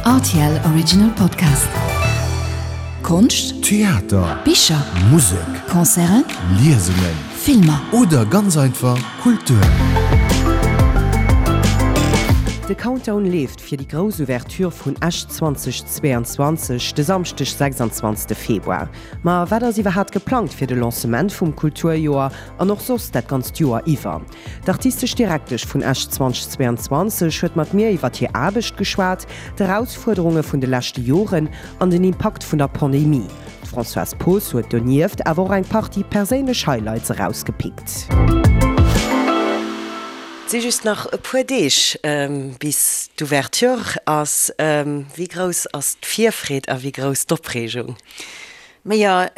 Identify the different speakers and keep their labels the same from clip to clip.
Speaker 1: Rtl Original Podcast. Konscht,
Speaker 2: Theater,
Speaker 1: Bicher,
Speaker 2: Musek,
Speaker 1: Concerten,
Speaker 2: Liesungen,
Speaker 1: Filmer.
Speaker 2: Oder ganz einfach Kultur.
Speaker 3: De Countdown leeft fir déi grouss Ouverture vun Esch 2022, de Samschdeg 26 Februar. Ma wat ass iwwerhaat geplangt fir de Lancement vum Kulturjoer an och soss dat ganzt Joer iwwer? D'artistesch Direktesch vun Esch 2022 huet mat mir iwwer hir Aarbecht geschwat, d'Erausfuerderunge vun de leschte Joren an den Impakt vun der Pandemie. D'Françoise Poos huet donieft awer och eng Partie perséinlech Highlights erausgepickt. Et si just nach e puer Deeg bis d'Ouverture ass. Wéi grouss ass d'Virfreed a wéi grouss d'Opreegung?
Speaker 4: Majo,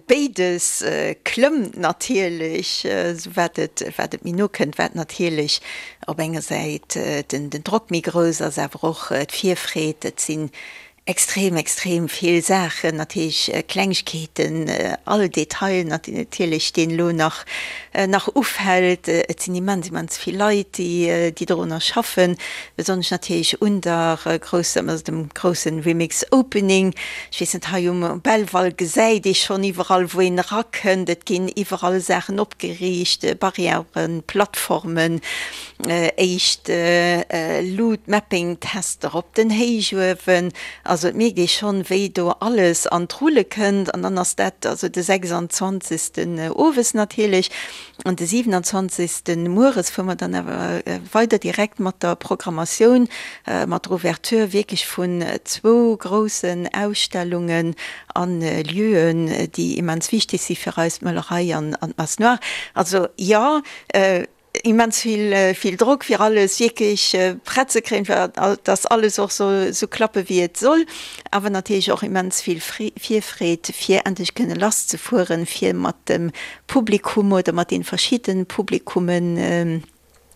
Speaker 4: béides klëmmt natierlech, esou wat et wat et méi no kënnt, wat natierlech op enger Säit den den Drock méi grouss ass, awer och d'Virfreed. Et sinn extrem, extrem vill Saachen, natierlech Klengegkeeten, all Detail natierlech, deen elo nach nach ufält. Et sinn immens, immens vill Leit, déi déi dorunner schaffen, besonnesch natierlech un der grousser, also dem groussen Remix Opening. Ech weess net, hei um Belval gesäit ee schonn iwwerall, wou een erakënnt, et ginn iwwerall Saachen opgeriicht, Barrièren, Plattformen, éischt Loot-Mapping-Tester op den Héichuewen. Also et mierkt ee schonn, wéi do alles an d'Rulle kënnt. An dann ass dat also de 26. owes natierlech. An de 27. Mueres fuere mer dann awer weider direkt mat der Programmatioun, mat der Ouverture wierklech vun zwou groussen Ausstellungen a Lieuen, déi immens wichteg si fir eis, d'Möllerei an d'Masse Noire. Also jo, immens vill, vill Drock fir alles wierklech prett ze kréien, fir dass alles och soll esou klappe wéi et soll, awer natierlech och immens vill Virfreed fir endlech kënne lass ze fueren, fir mat dem Publikum oder mat den verschidden Publikummen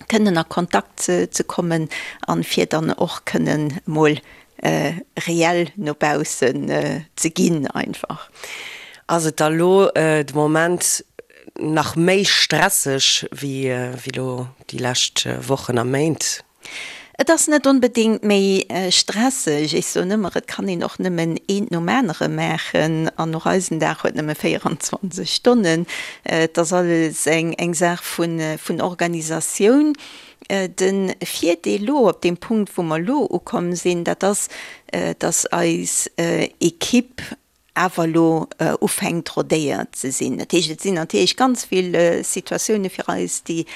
Speaker 4: kënnen a Kontakt ze kommen an fir dann och kënnen mol reell no baussen ze ginn einfach.
Speaker 3: Ass et da lo de Moment nach méi stresseg wéi lo déi lescht Wochen a Méint?
Speaker 4: Et ass net onbedéngt méi stresseg. Ech soen ëmmer, et kann een och nëmmen eent nom anere maachen an och eisen Dag huet nëmme 24 Stonnen. Et ass alles eng Saach vun Organisatioun. De Virdeel elo op deem Punkt, wou mer elo ukomm sinn, dat ass, datt eis Equipe awer elo ufänkt rodéiert ze sinn. Dat heescht, et sinn natierlech ganz vill Situatioune fir eis, déi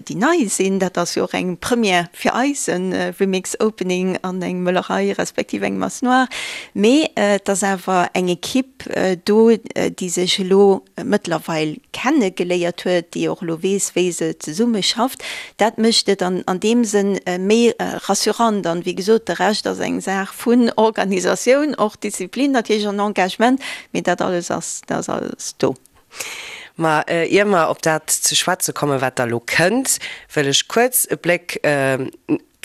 Speaker 4: déi nei sinn. Dat ass jo och eng Première fir eis, e Remix Opening an eng Möllerei respektiv eng Masse Noire. Mee et ass awer eng Equipe do, déi sech elo mëttlerweil kenne geléiert huet, déi och elo weess, wéi se zesumme schafft. Dat mécht et an an deem Sënn méi rassurant. An, wéi gesot, de Rescht ass eng Saach vun Organisatioun, och Disziplin natierlech an Engagement, mee dat alles ass, dat ass alles do.
Speaker 3: Ma ier mer op dat ze schwätze kommen, wat da lo kënnt, wëll ech kuerz e Bléck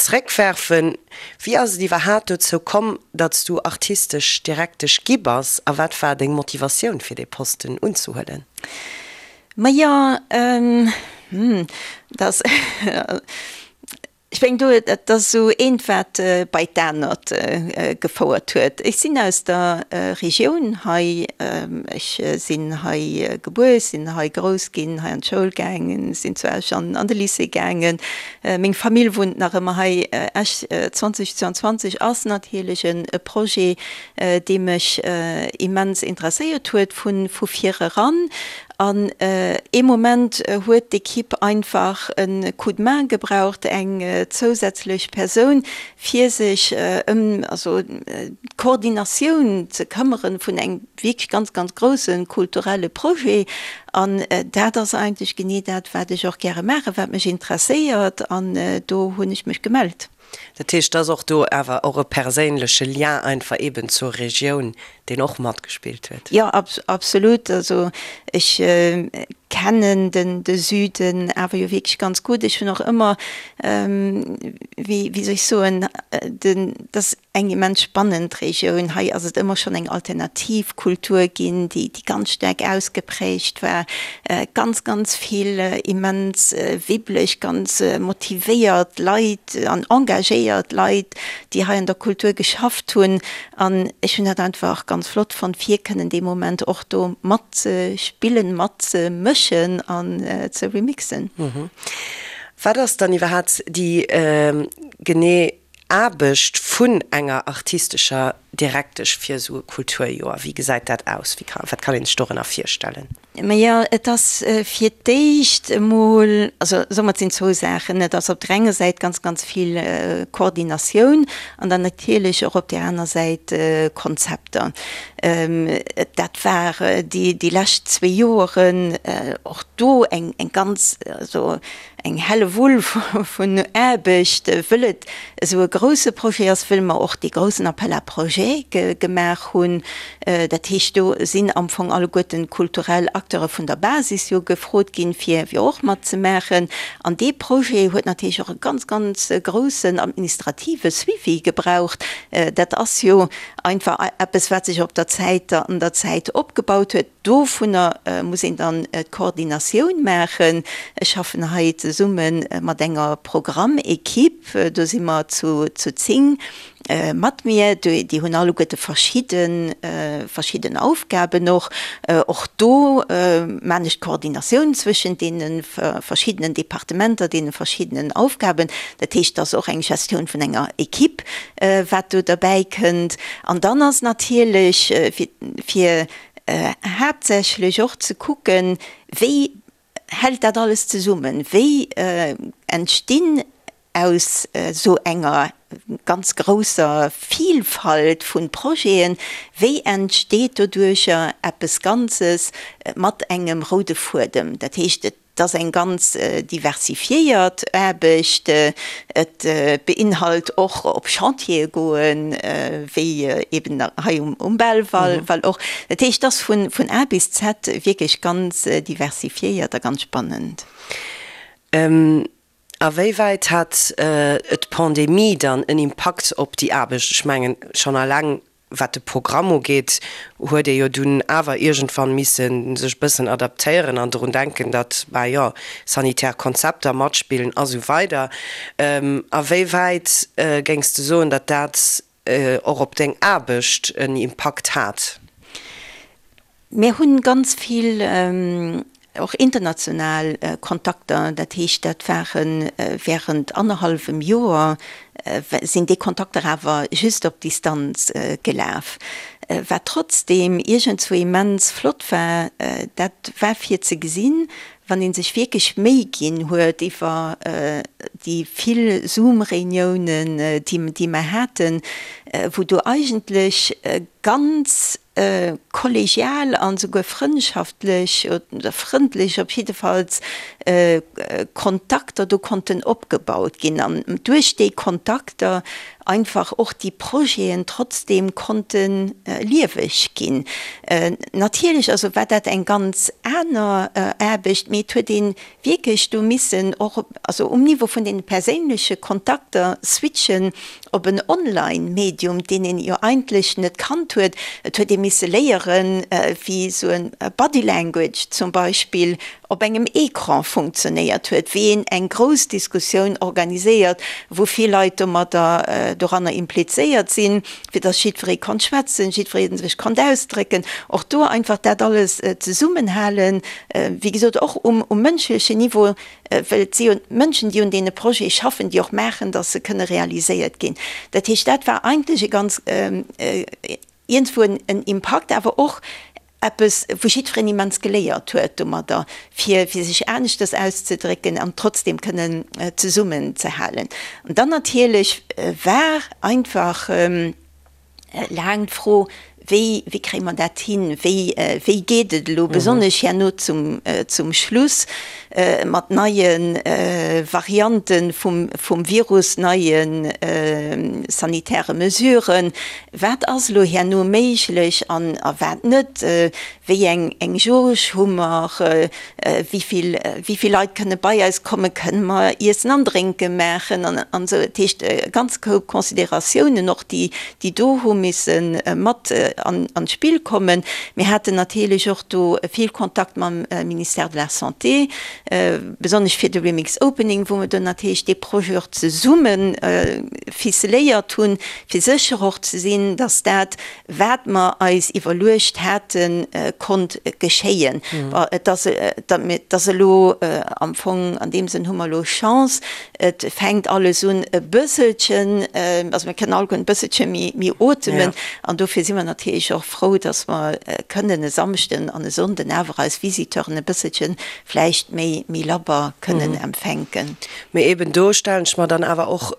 Speaker 3: zréckwerfen. Wéi ass et iwwerhaat dozou komm, datt s du artistesch Direktesch gi bass a wat war deng Motivatioun fir dee Posten unzehuelen?
Speaker 4: Majo, hm, dat ass, Ech mengen do, dat ass esou eent wat bei d'anert gefouert huet. Ech sinn aus der Regioun hei, ech sinn hei gebuer, ech sinn hei grouss ginn, hei an d'Schoul gaangen, sinn zu Esch an de Lycée gaangen. Meng Famill wunnt nach ëmmer hei. Esch 2022 ass natierlech e Projet, dee mech immens interesséiert huet vu vir eran. An ee Moment huet d'Ekipp einfach e Coup de main gebraucht, eng zousätzlech Persoun, fir sech ëm also d'Koordinatioun ze këmmere vun engem wierklech ganz, ganz grousse kulturelle Projet. An dat ass eigentlech genee dat, wat ech och gäre maachen, wat mech interesséiert. An do hunn ech mech gemellt.
Speaker 3: Dat heescht, et ass och do awer och e perséinleche Lien einfach eeben zur Regioun, deen och matgespillt huet.
Speaker 4: Jo, absolut. Also ech kennen de Süden awer jo wierklech ganz gutt. Ech hunn och ëmmer, wéi soll ech soen, den, dass. eng immens spannend Regioun. Hei ass et ëmmer schonn eng alternativ Kultur ginn, déi ganz staark ausgeprägt war. Ganz, ganz vill immens wibbeleg, ganz motivéiert Leit an engagéiert Leit, déi hei an der Kultur geschafft hunn. An ech hunn dat einfach ganz flott fonnt, fir kënnen dee Moment och do matzespillen, matzemëschen an ze remixen.
Speaker 3: Wat ass dann iwwerhaapt déi genee Aarbecht vun enger artistescher Direktesch fir esou e Kulturjoer? Wéi gesäit dat aus? Wéi ka, wat kann een sech dorënner virstellen?
Speaker 4: Majo, et ass fir d'éischt emol, also soe mer, et sinn zwou Saachen. Et ass op der enger Säit ganz, ganz vill Koordinatioun an dann natierlech och op där aner Säit Konzepter. Dat war déi, déi lescht zwee Joeren och do eng, eng ganz, also Eng Hellewull vun Aarbecht, wëll et esou e grouse Projet ass, wëll mer och dee groussen Appel à projets gemaach hunn. Dat heescht, do sinn am Fong alleguerten d'kulturell Acteure vun der Basis jo gefrot ginn, fir och matzemaachen. An dee Projet huet natierlech och e ganz, ganz groussen administrative Suivi gebraucht. Dat ass jo einfach eppes, wat sech op der Zäit, an der Zäit opgebaut huet. Dovunner muss een dann d'Koordinatioun maachen. Ech schaffen hei zesumme mat enger Programmequipe, do si mer zu 10 mat mir. Déi hunn alleguerte verschidde verschidden Aufgaben och. Och do maan ech d'Koordinatioun zwëschent deene verschiddenen Departementer, deene verschiddenen Aufgaben. Dat heescht, et ass och eng Gestioun vun enger Equipe, wat do derbäi kënnt. An dann ass natierlech fir haaptsächlech och ze kucken, wéi hält dat alles zesummen, wéi entstinn aus esou enger ganz grousser Vielfalt vu Projeten, wéi entsteet doduercher eppes Ganzes mat engem roude Fuedem. Dat heescht, et Et ass eng ganz diversifiéiert Aarbecht. Et beinhalt och op Chantiere goen, wéi eben hei um Belval och. Dat heescht, et ass vun A bis Z wierklech ganz diversifiéiert a ganz spannend.
Speaker 3: A wéi wäit hat d'Pandemie dann en Impakt op déi Aarbecht? Ech mengen, schonn eleng wat de Programm ugeet, huet ee jo dunn awer iergendwann misse sech e bëssen adaptéieren an drun denken, datt, bah jo, sanitär Konzepter matspillen a sou weider. A wéi wäit géings de soen, datt dat och op deng Aarbecht en Impakt hat?
Speaker 4: Mir hunn ganz vill och international Kontakter, dat heescht dat ware während annerhallwem Joer sinn déi Kontakter awer just op Distanz gelaf. Wat trotzdeem iergendzwou immens flott war, dat war fir ze gesinn, wann ee sech wierklech Méi ginn huet iwwer déi vill Zoom-Reuniounen, déi mer haten, wou do eigentlech ganz kollegial an esouguer frëndschaftlech oder frëndlech op jiddefalls Kontakter do konnten opgebaut ginn an duerch déi Kontakter einfach och déi Projeten trotzdeem konnte lieweg ginn. Natierlech also war dat eng ganz aner Aarbecht, mee et huet ee wierklech do missen och also um Niveau vun deene perséinleche Kontakter switchen op en Online-Medium, deen een jo eigentlech net kannt huet. Et huet ee misse léieren, wéi esou e Body Language zum Beispill op engem Ecran funktionéiert huet, wéi een eng grouss Diskussioun organiséiert, wou vill Leit domadder doranner implizéiert sinn, fir dass jiddweree konnt schwätzen, jiddweree sech konnt ausdrécken. Och do einfach dat alles zesummenhalen, wéi gesot och um mënschlechen Niveau, well et si jo d'Mënschen, déi un deene Projete schaffen, déi och maachen, dass se kënne realiséiert ginn. Dat heescht, dat war eigentlech e ganz, iergendwou en Impakt, awer och eppes, wou jiddwereen immens geléiert huet domadder, fir fir sech aneschters auszedrécken an trotzdem kënnen zesummenzehalen. An dann natierlech war einfach laang d'Fro, Wéi, wéi kréie mer dat hin? Wéi, wéi geet et elo besonnesch herno zum, zum Schluss? Mat neie Variante vum Virus, neie sanitäre Mesuren. Wat ass elo herno méiglech an a wat net? Wéi eng Jauge hu mer? Wéi vill Leit kënne bei eis kommen? Kënne mer Iessen an Drénke maachen? An esou. Dat heescht, e ganze Koup Consideratiounen och, déi do hu misse mat an d'Spill kommen. Mir haten natierlech och do vill Kontakt mam Ministère de la Santé, besonnesch fir de Remix Opening, wou mer do natierlech dee Projet och zesumme ficeléiert hunn, fir sécher och ze sinn, dass dat, wat mer eis iwwerluecht haten, konnt geschéien. Bon, et ass, et ass elo am Fong, an deem Sënn hu mer elo Chance, Et fänkt alles un e bësselchen, also mir kënnen alleguerten e bësselche méi otemen. An dofir si mer natierlech och frou, dass mer kënnen e Samschden an e Sonnden awer eis Visiteuren e bësselche vläicht méi labber kënnen empfänken.
Speaker 3: Mee eben do stellen ech mer dann awer och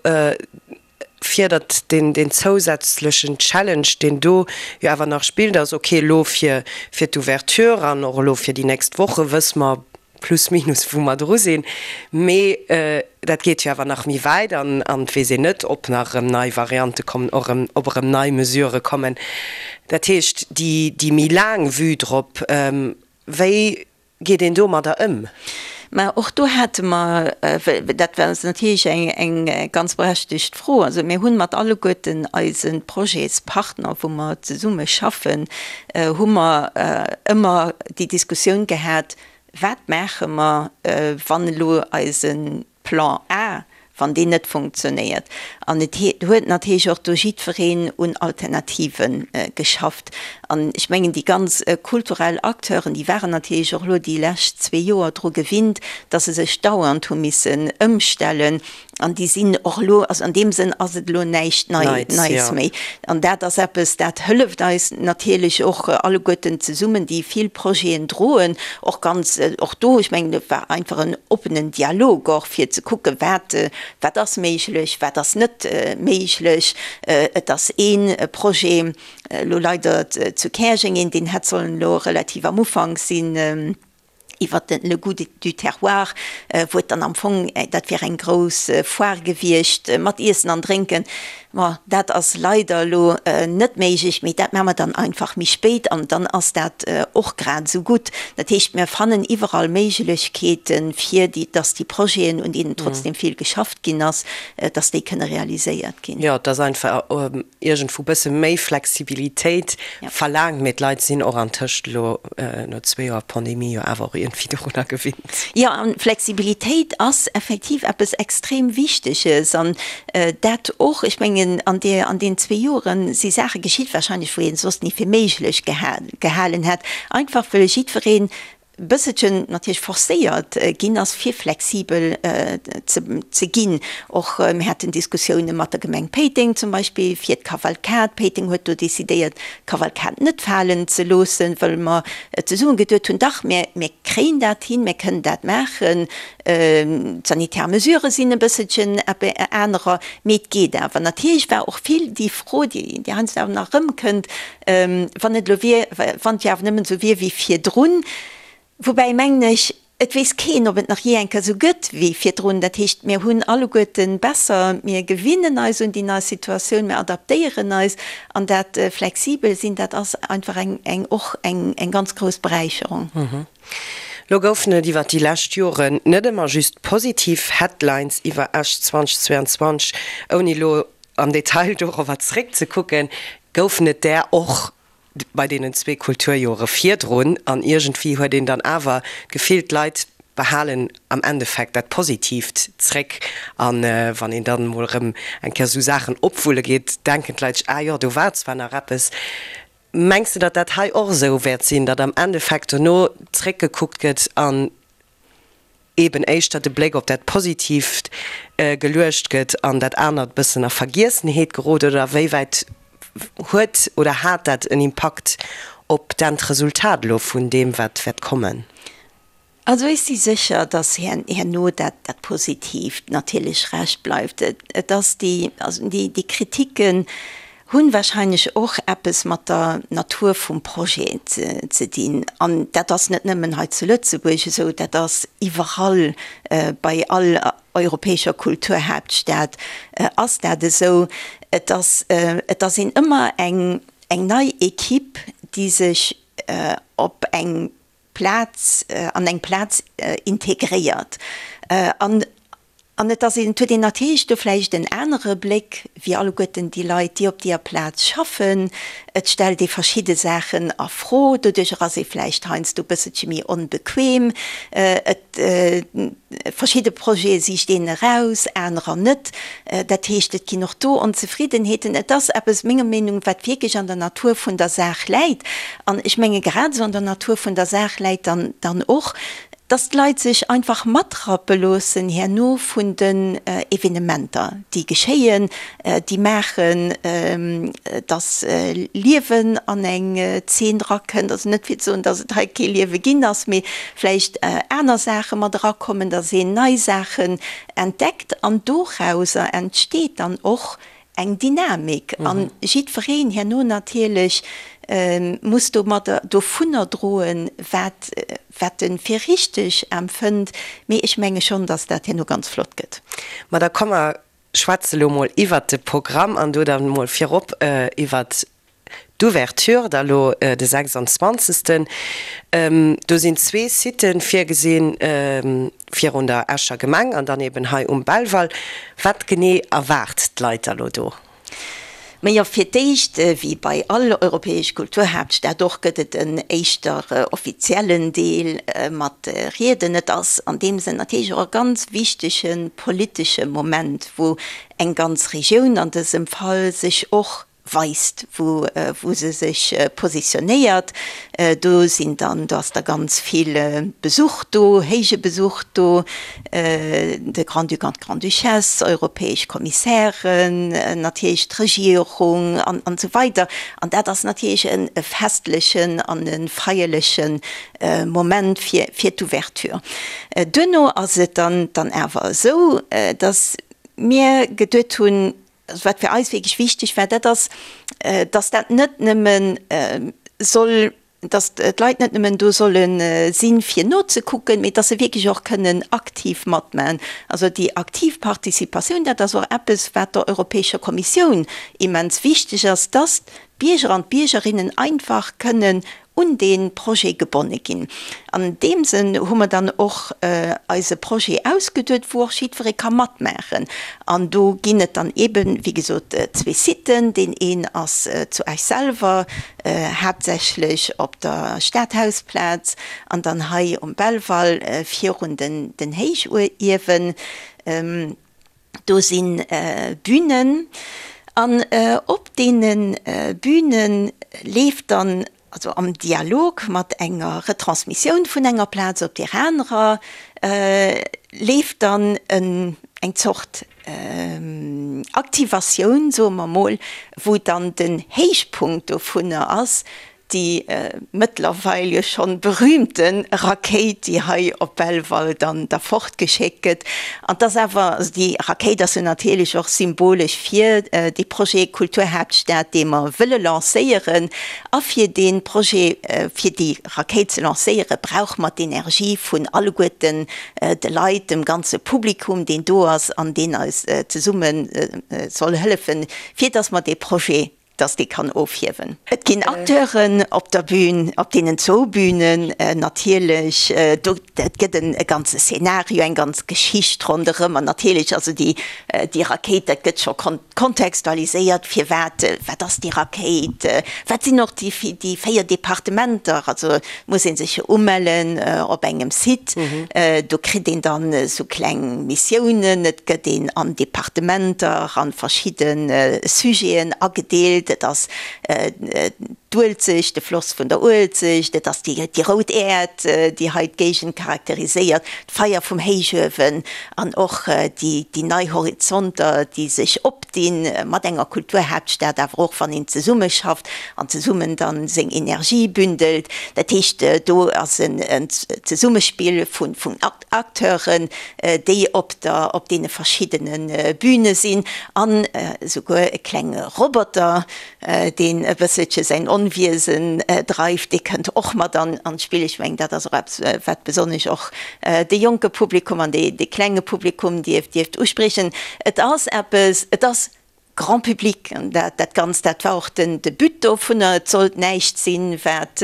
Speaker 3: vir, datt deen zousätzlechen Challenge, deen do jo awer nach spillt, ass, okay, elo fir d'Ouverture an och elo fir déi nächst Woche wësse mer plus minus wou mer dru sinn, mee dat geet jo awer nach méi wäit an et weess een net, ob nach erëm nei Variante kommen, och erëm, ob erëm nei Mesurë kommen. Dat heescht, déi méi laang Vue drop, wéi geet een domadder ëm?
Speaker 4: Mä och do hate mer, dat war natierlech eng ganz berechtegt Fro, also mir hunn mat alleguerten eise Projetspartner, wou mer zesumme schaffen, hu mer ëmmer déi Diskussioun gehat, Wat maache mer, wann elo eise Plan A, wann deen net funktionéiert? An et huet natierlech och do jiddwereen un Alternative geschafft. An ech mengen, déi ganz kulturell Acteuren, déi waren natierlech och elo déi lescht zwee Joer dru gewinnt, datt se sech dauernd hu missen ëmstellen. An déi sinn och elo, also an deem Sënn ass et elo näischt Neits méi. An dat ass eppes, dat hëlleft eis natierlech och alleguerten zesummen, déi vill Projeten droen, och ganz, och do, ech mengen, et war einfach en oppenen Dialog och, fir ze kucken, wat, wat ass méiglech, wat ass net méiglech. Et ass ee Projet elo leider zu Käerjeng, een, deen hätt sollen elo relativ am Ufank sinn, iwwer den Le goût du terroir, wou et dann am Fong, dat wier eng grouss Foire gewiescht mat Iessen an Drénken. Ma dat ass leider elo net méiglech, mee dat maache mer dann einfach méi spéit an dann ass dat och grad esou gutt. Dat heescht, mir fannen iwwerall Méiglechkeeten, fir déi, dass déi Projeten, un deenen trotzdem vill geschafft ginn ass, dass déi kënne realiséiert ginn.
Speaker 3: Jo, et ass einfach iergendwou bësse méi Flexibilitéit verlaangt, mee d'Leit sinn och antëscht elo no zwee Joer Pandemie jo awer och iergendwéi dorunner gewinnt.
Speaker 4: Jo, an Flexibilitéit ass effektiv eppes extrem Wichteges an dat och, ech mengen, an deer, an deenen zwee Joere si Saache geschitt wahrscheinlech, wou ee soss ni fir méiglech gehalen hätt, einfach wëll jiddwereen bësselchen natierlech forcéiert ginn ass, fir flexibel ze ginn. Och mir haten Diskussioune mat der Gemeng Péiteng zum Beispill fir d'Kavalkad. Péiteng huet do decidéiert, d'Kavalkad net falen ze loossen, wëll mer zesumme geduet hunn, dach, mir kréien dat hin, mir kënnen dat maachen. D'sanitär Mesurë sinn e bësselchen anerer, mee et geet awer. Natierlech war och vill déi Fro, déi heiansdo awer nach erëmkënnt, Wann et elo wier, wann et jo awer nëmmen esou wier wéi virdrun. Woubäi, mengen ech, et weess keen, ob et nach jee eng Kéier esou gëtt wéi virdrun. Dat heescht, mir hunn alleguerte besser, mir gewinnen eis un déi nei Situatioun, mir adaptéieren eis. An dat flexibel sinn, dat ass einfach eng, eng, och eng, eng ganz grouss Beräicherung.
Speaker 3: Lo goufen et iwwer déi lescht Joren net ëmmer just positiv Headlines iwwer Esch 2022. Ouni elo am Detail dorobber zeréckzekucken, goufen et där och bei deenen zwee Kulturjore virdrun. An iergendwéi huet een dann awer d'Gefill, d'Leit behalen am Endeffekt dat Positiivt zréck. A wann een dann emol erëm eng Kéier esou Saachen opwulle geet, denken d'Leit sech, Ah jo, do war zwar nach eppes. Mengs de, datt dat hei och esou wäert sinn, datt am Endeffekt dono zréckgekuckt gëtt an eeben éischter de Bléck op dat Positiivt geluecht gëtt an dat anert e bëssen a Vergiessenheet gerot? Oder a wéi wäit huet oder hat dat en Impakt op d'Endresultat elo vun deem, wat wäert kommen?
Speaker 4: Also ech si sécher, datt herno dat Positiivt natierlech Recht bleift. Et ass déi, also déi Kritiken. Hunn wahrscheinlech och eppes mat der Natur vum Projet ze dinn. An dat ass net nëmmen hei zu Lëtzebuerg esou, dat ass iwwerall, bei all europäescher Kulturhaaptstad ass dat esou. Et ass, et ass een ëmmer eng, eng nei Equipe, déi sech op eng Plaz, an eng Plaz integréiert. An An et ass een, et huet een natierlech do vläicht en anere Bléck wéi alleguerten déi Leit, déi op deeër Plaz schaffen. Et stellt ee verschidde Saachen a Fro, doduercher ass ee vläicht heiansdo e bësselche méi onbequem. Et, verschidde Projete sicht een eraus, anerer net. Dat heescht, et ginn och do Onzefriddenheeten. Et ass eppes, menger Meenung, wat wierklech an der Natur vun der Saach läit. An ech menge grad esou an der Natur vun der Saach läit dann dann och, Dass d'Leit sech einfach matrappe loossen herno vun den Evenementer, déi geschéien, déi maachen, dass Liewen an eng Zeen drakënnt. Also net fir ze soen, dass et hei kee Liewe ginn ass, mee vläicht aner Saache mat erakommen, dass een nei Saachen entdeckt an dorauser entsteet dann och eng Dynamik an jiddwereen herno natierlech muss domadder, dovunner droen, wat, wat e fir richteg empfënnt. Mee ech menge schonn, datt dat herno ganz flott gëtt.
Speaker 3: Ma da komm mer schwätze lo mol iwwert de Programm an do dann mol virop iwwert D'Ouverture da lo de 26. Do sinn zwee Siten virgesinn, virun der Escher Gemeng an dann eben hei um Belval. Wat genee erwaart d'Leit da lo do?
Speaker 4: Majo, fir d'éischt, wéi bei all europäesch Kulturhaaptstad och, gëtt et en éischter offiziellen Deel mat Rieden. Et ass an deem Sënn natierlech och e ganz wichtege politesche Moment, wou eng ganz Regioun an dësem Fall sech och weist, wou wou se sech positionéiert. Do sinn dann, do ass da ganz vill Besuch do, héije Besuch do, de Grand-Duc an d'Grande-Duchesse, europäesch Kommissären, natierlech d'Regierung an an esou weider. An dat ass natierlech e festlechen an e feierleche Moment fir fir d'Ouverture. Duerno ass et dann dann awer esou, datt mir geduet hunn, Also wat fir eis wierklech wichteg war, dat ass, dass dat net nëmme soll, dass d'Leit net nëmmen do solle sinn, fir nozekucken, mee dass se wierklech och kënnen aktiv matmachen. Also déi aktiv Participatioun, dat ass och eppes, wat der Europäescher Kommissioun immens wichteg ass, dass d'Bierger an d'Biergerinnen einfach kënnen un dee Projet gebonne ginn. An deem Sënn hu mer dann och eise Projet ausgeduet, wou och jiddweree ka matmaachen. An do ginn et dann eeben, wéi gesot, zwee Siten. Deen een ass zu Esch selwer, haaptsächlech op der Stadhausplaz, an dann hei um Belval virun den Héichuewen. Do si Bünen an op deene Büne leeft dann, also am Dialog mat enger Retransmissioun vun enger Plaz op deer anerer, leeft dann eng Zort Aktivatioun, soe mer mol, wou dann den Héichpunkt dovunner ass, déi mëttlerweil jo schonn berühmte Rakéit, déi hei op Belval dann da fortgeschéckt gëtt. An 't ass awer, also déi Rakéit ass jo natierlech och symbolesch fir dee Projet Kulturhaaptstad, dee mer wëlle lancéieren. A fir dee Projet, fir déi Rakéit ze lancéieren, brauche mer d'Energie vun alleguerten de Leit, dem ganze Publikum, deen do ass an deen eis zesumme soll hëllefen, fir dass mer dee Projet dass dee kann ofhiewen. Et ginn Acteuren op der Bühn, op deenen zwou Bühnen natierlech. Do, et gëtt en e ganze Szenario, eng ganz Geschicht ronderëm. An natierlech, also déi, déi Rakéit, dat gëtt scho kontextualiséiert, firwat, wat ass déi Rakéit, wat sinn och déi, déi 4 Departementer. Also muss ee sech jo umellen op engem Site, do kritt een dann esou kleng Missiounen, et gëtt een an Departementer, an verschidde Sujeten agedeelt, et ass. d'Uelzecht, de Floss vun der Uelzecht, et ass déi rout Äerd, déi hei d'Géigend charakteriséiert, d'Feier vum Héichuewen an och déi nei Horizonter, déi sech opdinn mat enger Kulturhaaptstad, awer och wann een zesummeschafft an zesummen dann seng Energie bündelt. Dat heescht, do ass en Zesummespill vun Acteuren, déi op der, op deene verschiddene Bühne sinn an esouguer e klenge Roboter, deen e bësselche säin Onwiesen dreift, dee kënnt och mat an d'Spill. Ech mengen, dat ass och eppes, wat besonnesch och de jonke Publikum an dee klenge Publikum dierft, dierft uspriechen. Et ass eppes, et ass Grand public, an dat, dat Ganzt, dat war och den, de But dovunner. Et sollt näischt sinn, wat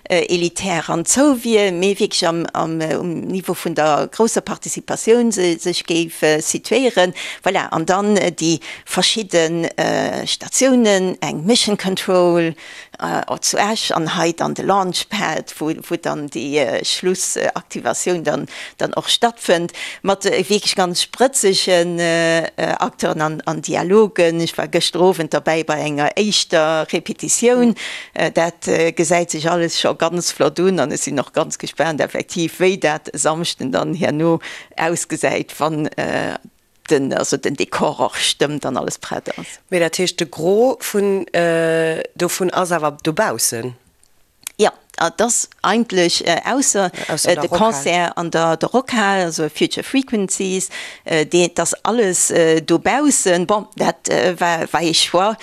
Speaker 4: elitär an zou wier, mee wierklech am, am, um Niveau vun der grousser Participatioun sech géif situéieren. Voilà, an dann déi verschidde Statiounen, eng Mission Control zu Esch an hei dann de Launchpad, wou wou dann déi Schlussaktivatioun dann dann och stattfënnt, mat wierklech ganz sprëtzegen Acteuren an an Dialogen. Ech war gëschter Owend derbäi bei enger éischter Repetitioun. Dat gesäit sech alles scho ganz flott un an ech sinn och ganz gespaant effektiv, wéi dat e Samschden dann herno ausgesäit, wann den, also den Dekor och stëmmt an alles prett ass.
Speaker 3: Mee dat heescht, de Gros vun dovun ass awer dobaussen?
Speaker 4: Jo, et ass eigentlech, ausser de Concert an der Rockhal, also Future Frequencies, dee, et ass alles dobaussen. Bon, dat war, war ee Choix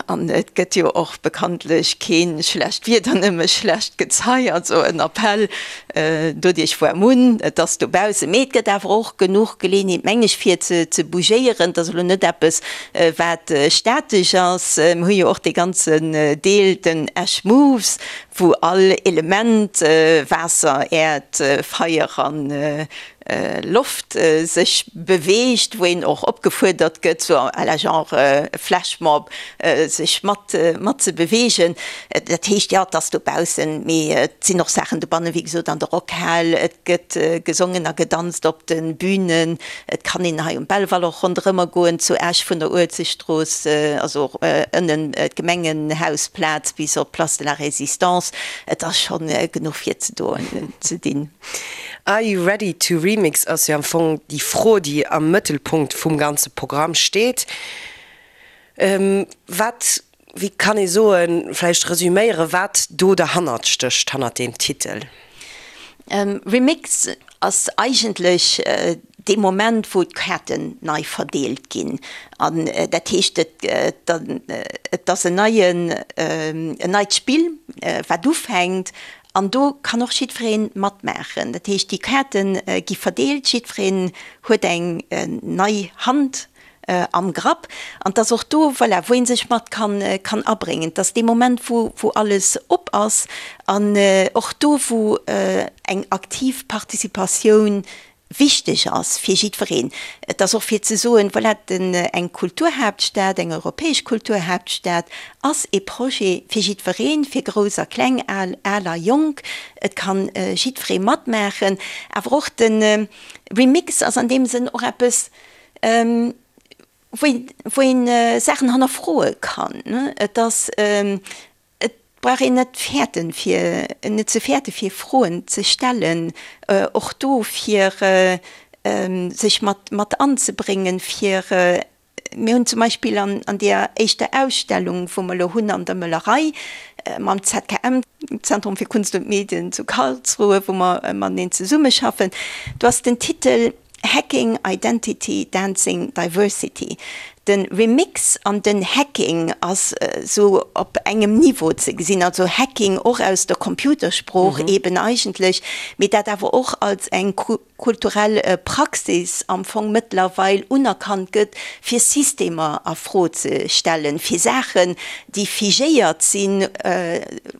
Speaker 4: an et gëtt jo och bekanntlech kee schlecht Wieder, nëmme schlecht Gezei, also en Appell Doduerch woar munn, et ass dobaussen, mee et gëtt awer och genuch Geleeënheet, meng ech, fir ze bougéieren. Et ass elo net eppes, wat statesch ass. Mir hu jo och dee ganzen Deel, den Esch Moves, wou all Element, Waasser, Äerd, Feier an Loft, sech beweegt, wou een och opgefuerdert gëtt, sou à la genre Flashmob, sech mat mat ze beweegen. Dat heescht, jo, et ass dobaussen, mee et sinn och Saachen dobannen, wéi gesot an der Rockhal, et gëtt gesongen a gedanzt op de Bünen, et kann een hei um Belval och ronderëmmer goen, zu Esch vun der Uelzechtstrooss, also och ënnen d'Gemengenhausplaz bis op d'Place de la Résistance. Et ass schonn genuch fir ze doen, ze dinn.
Speaker 3: Are you ready to remix ass jo am Fong déi Fro, déi am Mëttelpunkt vum ganze Programm steet. Wat, wéi kann ee soen, vläicht resüméieren, wat do derhannert stécht, hannert deem Titel?
Speaker 4: Remix ass eigentlech dee Moment, wou d'Kaarten nei verdeelt ginn. An dat heescht, et ass en neien, en neit Spill, wat ufänkt. An do kann och jiddweree matmaachen. Dat heescht, déi Kaarte gi verdeelt, jiddwereen huet eng nei Hand am Grapp. An 't ass och do, voilà, wou ee sech mat kann, kann abréngen. 't ass dee Moment, wou, wou alles op ass an och do, wou eng aktiv Participatioun wichteg ass fir jiddwereen. Et ass och fir ze soen, voilà, den, eng Kulturhaaptstad, eng europäesch Kulturhaaptstad ass ee Projet fir jiddwereen, fir Grouss a Kleng, Al, al a Jonk. Et kann jiddweree matmaachen. Awer och de Remix ass an deem Sënn och eppes, wou een Saachen hannerfroe kann. Et ass, et brauch een net fäerten, fir, net ze fäerte fir Froen ze stellen, och do fir sech mat mat anzebréngen, fir, mir hunn zum Beispill an an deeër éischter Ausstellung, wou mer elo hunn an der Möllerei mam ZKM, Zentrum für Kunst und Medien zu Karlsruhe, wou mer mateneen zesummeschaffen, do ass den Titel, Hacking Identity, Dancing Diversity. De Remix an den Hacking ass sou op engem Niveau ze gesinn, also Hacking och aus der Computersprooch eben eigentlech, mee dat awer och als eng kulturell Praxis am Fong mëttlerweil unerkannt gëtt, fir Systemer a Fro ze stellen, fir Saachen, déi figéiert sinn,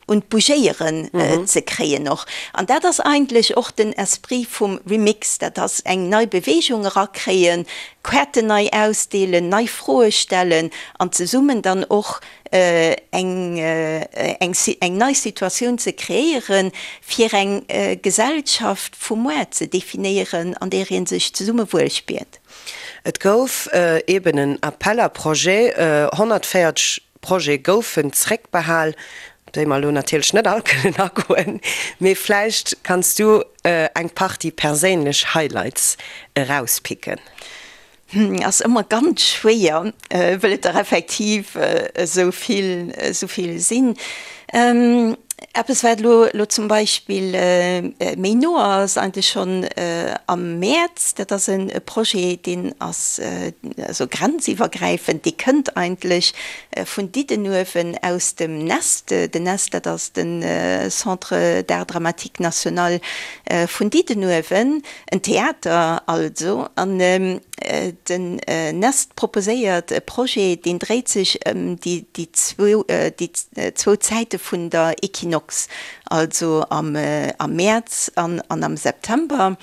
Speaker 4: un d'Bougéieren ze kréien och. An dat ass eigentlech och den Esprit vum Remix, dat ass eng nei Beweegung erakréien, Kaarten nei ausdeelen, nei Froe stellen an zesummen dann och eng eng nei Situatioun ze kreéieren, fir eng Gesellschaft vu muar ze definéieren, an där ee sech zesumme wuel spiert.
Speaker 3: Et gouf eben en Appel à projets, 140. Projete goufen zréckbehal, op déi mer elo natierlech net all kënnen agoen, mee vläicht kanns du eng Partie perséinlech Highlights erauspicken.
Speaker 4: Ass ëmmer ganz schwéier, wëll et der effektiv esou vill, esou vill sinn. Eppes wat elo elo zum Beispill méi no ass, eigentlech schonn am Mäerz, dat ass e Projet, deen ass also grenziwwergräifend, dee kënnt eigentlech vun Diddenuewen aus dem Nest. Den Nest, dat ass de Centre d'art dramatique national vun Diddenuewen. En Theater also, an den Nest proposéiert e Projet, deen dréit sech ëm déi zwou Zäite vun der Equinox, also am Mäerz an am September.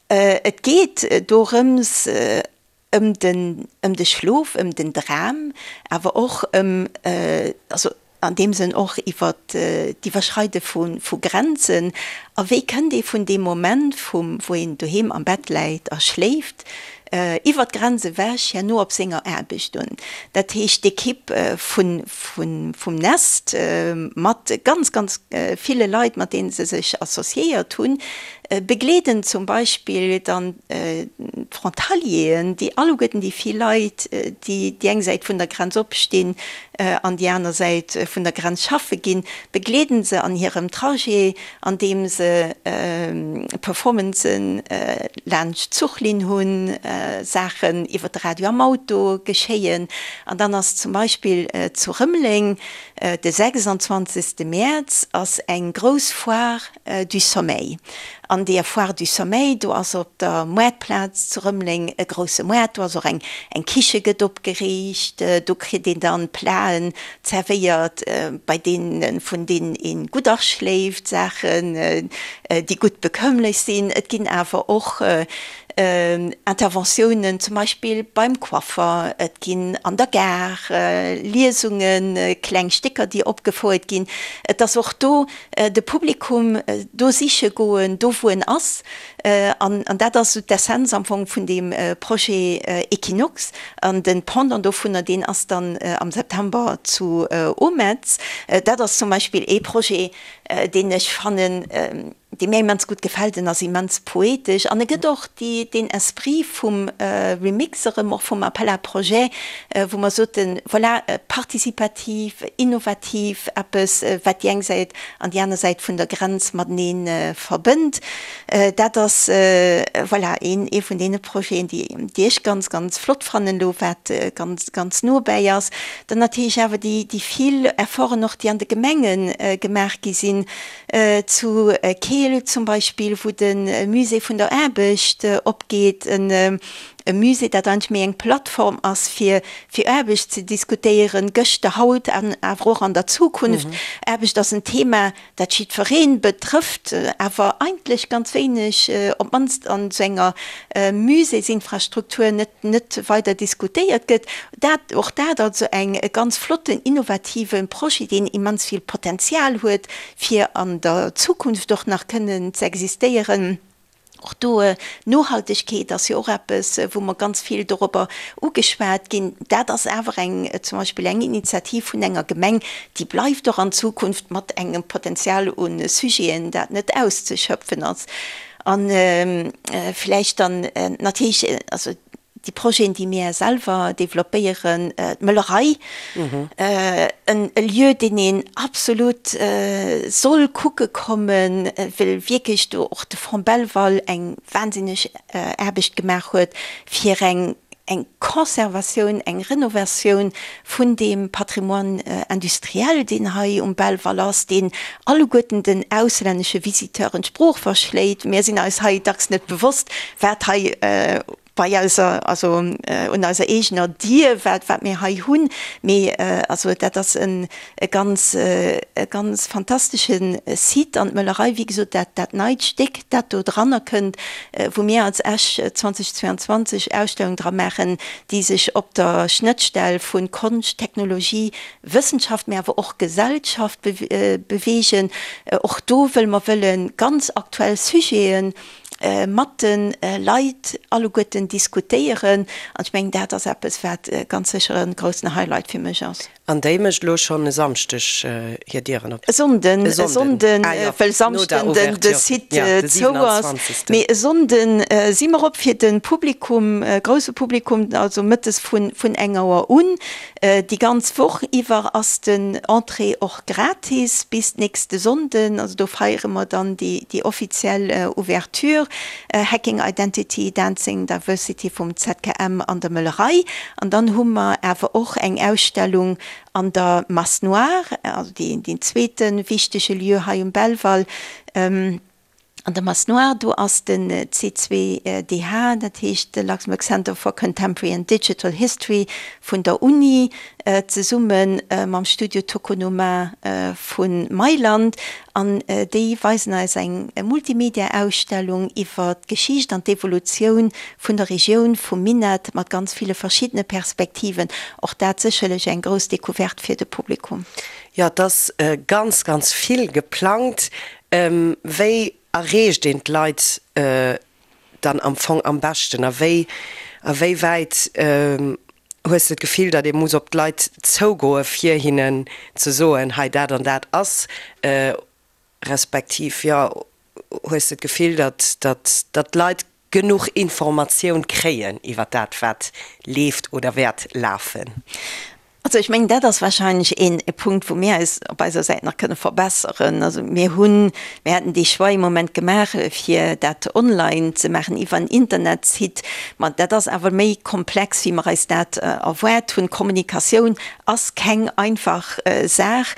Speaker 4: Et geet dorëms, ëm den, ëm de Schlof, ëm den Dram, awer och ëm, also an deem Sënn och iwwer d'Iwwerschreide vu, vu Grenzen. A wéi kënnt ee vun deem Moment vum, wou een doheem am Bett läit a schléift, iwwer d'Grenz ewech herno op senger Aarbecht un? Dat heescht, d'Ekipp vun, vun, vum Nest mat ganz, ganz ville Leit, mat deene se sech associéiert hunn, begleeden zum Beispill dann d'Frontalieren, déi alleguerten déi vill Leit, déi déi eng Säit vun der Grenz opstinn an déi aner Säit vun der Grenz schaffe ginn, begleeden se an hirem Trajet, andeem se Performancen laanscht d'Zuchlinn hunn, Saachen iwwer de Radio am Auto geschéien. An dann ass zum Beispill zu Rëmeleng de 26. Mäerz ass eng grouss Foire du Sommeil. An deeër Foire du Sommeil, do ass op der Moartplaz zu Rëmeleng e grousse Moart, do ass och eng eng Kiche gëtt opgeriicht, do kritt een dann Platen zerwéiert, bei deenen, vun deenen een gutt aschléift, Saachen, déi gutt bekömmlech sinn. Et ginn awer och Interventiounen, zum Beispill beim Coiffer, et ginn an der Gare Liesungen, kleng Stécker, déi opgefouert ginn. Et ass och do de Publikum do siche goen, do wou en ass. An dat ass esou d'Essenz am Fong vun deem Projet Equinox. An de Pendant dovunner, deen ass dann am September zu Ometz. Dat ass zum Beispill ee Projet, deen ech fannen, dee mir immens gutt gefält. En ass immens poetesch an e gëtt och déi, deen Esprit vum Remix erëm, och vum Appel à projets, wou mer soten, voilà, participativ, innovativ, eppes, wat déi eng Säit an déi aner Säit vun der Grenz matenee verbënnt. Dat ass, voilà, een, ee vun deene Projeten, déi, déi ech ganz, ganz flott fannen elo, wat ganz, ganz no bäi ass. Dann natierlech awer déi, déi vill Efforten och, déi an de Gemenge gemaach gi sinn, Zu Keel zum Beispill, wou de Musée vun der Aarbecht opgeet, e Musée, dat eigentlech méi eng Plattform ass, fir fir Aarbecht ze diskutéieren, gëschter, haut an awer och an der Zukunft. Aarbecht ass en Thema, dat jiddweree betrëfft, awer eigentlech ganz wéineg, op d'mannst an esou enger Muséesinfrastruktur, net net weider diskutéiert gëtt. Dat, och dat also eng e ganz flotten, innovative Projet, deen immens vill Potenzial huet, fir an der Zukunft och nach kënnen ze existéieren. Och do, Nohaltegkeet ass jo och eppes, wou mer ganz vill dorobber ugeschwat ginn. Dat ass awer eng, zum Beispill eng Initiativ vun enger Gemeng, déi bleift och an Zukunft mat engem Potenzial u Sujeten, dat net auszeschöpfen ass. A vläicht dann natierlech, also déi Projeten, déi mir selwer developpéieren, d'Möllerei, e Lieu, deen een absolut soll kucke kommen, well wierklech do och de Fonds Belval eng wahnsinneg Aarbecht gemaach huet, fir eng eng Conservatioun, eng Renovatioun vun deem Patrimoine industriel, deen hei um Belval ass, deen alleguerten den auslännesche Visiteuren d'Sprooch verschléit. Mir sinn eis hei dacks net bewosst, wat hei bei eiser, also un eiser eegener Dier, wat, wat mir hei hunn. Mee also dat ass en e ganz, e ganz fantastesche Site. An d'Möllerei, wéi gesot, dat, dat neit Stéck, dat do dranner kënnt, wou mir als Esch 2022 Ausstellung dra maachen, déi sech op der Schnëttstell vu Konscht, Technologie, Wëssenschaft, mee awer och Gesellschaft beweegen. Och do wëlle mer wëlle ganz aktuell Sujeten mat de Leit alleguerten diskutéieren. An ech mengen, dat ass eppes, wat ganz sécher e groussen Highlight fir mech ass.
Speaker 3: An déi mécht elo schonn e Samschdeg hir Dieren op?
Speaker 4: E Sonnden, e Sonnden, well Samschden den de Site zou ass. Mee e Sonnden si mer op fir de Publikum, grousse Publikum, also mëttes vun vun eng Auer un. Déi ganz Woch iwwer ass den Entrée och gratis bis nächste Sonnden. Also do feiere mer dann déi déi offiziell Ouverture. Hacking Identity, Dancing Diversity vum ZKM an der Möllerei. An dann hu mer awer och eng Ausstellung an der Masse Noire, also deen zweete wichtege Lieu hei um Belval. An der Masse Noire, do ass den C2DH, dat heescht de Luxembourg Center for Contemporary and Digital History vun der Uni, zesumme mam Studio Tokonoma vu Mailand. An déi weisen eis eng Multimedia-Ausstellung iwwer d'Geschicht an d'Evolutioun vun der Regioun vum Minett mat ganz ville verschiddene Perspektiven. Och dat sécherlech eng grouss Decouverte fir de Publikum.
Speaker 3: Jo, et ass ganz, ganz vill geplangt. Wéi erreecht een d'Leit dann am Fong am beschten? A wéi, a wéi wäit hues de d'Gefill, datt ee muss op d'Leit zougoe fir hinnen ze soen, hei dat an dat ass, respektiv jo, hues de d'Gefill, datt, datt, datt d'Leit genuch Informatioun kréien iwwer dat wat leeft oder wäert lafen?
Speaker 4: Also ech mengen, dat ass wahrscheinlech een Punkt, wou mir eis op eiser Säit nach kënne verbesseren. Also mir hunn, mir haten dee Choix ee Moment gemaach, fir dat online ze maachen iwwer en Internetsite. Ma dat ass awer méi komplex, wéi mer eis dat erwaart hunn. Kommunikatioun ass keng einfach Saach.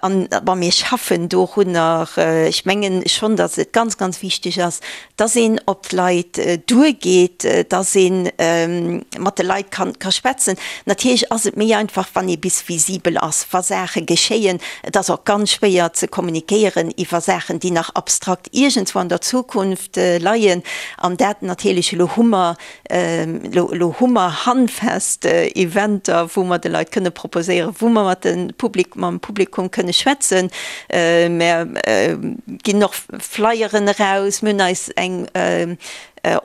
Speaker 4: An, bon, mir schaffen dorunner. Ech mengen schonn, datt et ganz, ganz wichteg ass, dass een op d'Leit duergeet, dass ee mat de Leit ka schwätzen. Natierlech ass et méi einfach, wann ee bis visibel ass, wa Saache geschéien. Et ass och ganz schwéier ze kommunikéieren iwwer Saachen, déi nach abstrakt iergendswou an der Zukunft leien. An dat natierlech, elo hu mer Elo hu mer handfest Eventer, wou mer de Leit kënne proposéieren, wou mer mat de Public, mam Publikum kënne schwätzen. Mer ginn och Flyeren eraus. Mir hunn eis eng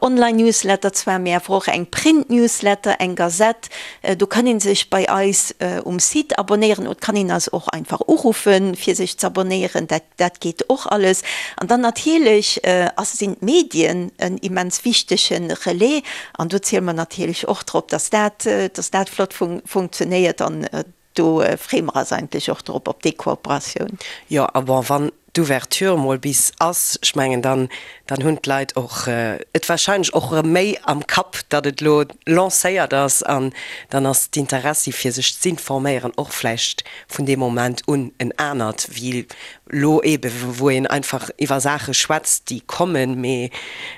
Speaker 4: Online-Newsletter zwar, mee awer och eng Print-Newsletter, eng Gazette. Do kann ee sech bei eis um Site abonnéieren oder kann een eis och einfach uruffen, fir sech z'abonnéieren. Dat. Dat geet och alles. An dann natierlech ass, sinn d'Medien en immens wichtege Relais. An do ziele mer natierlech och drop, dass dat, dass dat flott funktionéiert. An do freeë mer eis eigentlech och drop, op déi Kooperatioun.
Speaker 3: Jo, a bon, wann d'Ouverture mol bis ass, ech mengen, dann, dann hunn d'Leit och et warscheinlech och erëm méi am Kapp, datt et elo lancéiert ass. An dann ass d'Interessi fir sech z'informéieren och vläicht vun deem Moment un en anert wéi lo eebe wou een einfach iwwer Saache schwätzt, déi kommen, mee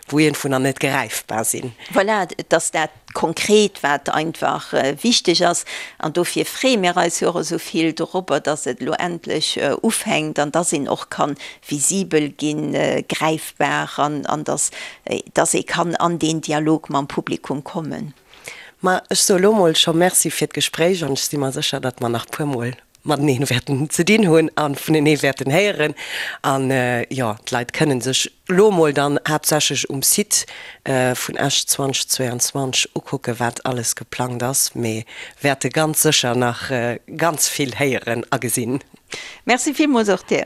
Speaker 3: wou iergendwou nach net gräifbar sinn.
Speaker 4: Voilà, et ass dat Konkret, wat einfach wichteg ass. An dofir freeë mir eis jo och esou vill dorobber, dass et elo endlech ufänkt an dass een och ka visibel ginn, gräifbar an dass, dass ee kann an deen Dialog mam Publikum kommen.
Speaker 3: Ma ech soe lo mol scho Merci fir d'Gespréich an ech si mer sécher, datt mer nach puermol mateneen wäerten ze dinn hunn a vunenee wäerten héieren. An jo, d'Leit kënnen sech lo mol dann haaptsächlech um Site vun Esch 2022 ukucken, wat alles geplangt ass, mee wäerte ganz sécher nach ganz vill héieren a gesinn.
Speaker 4: Merci villmools och dir.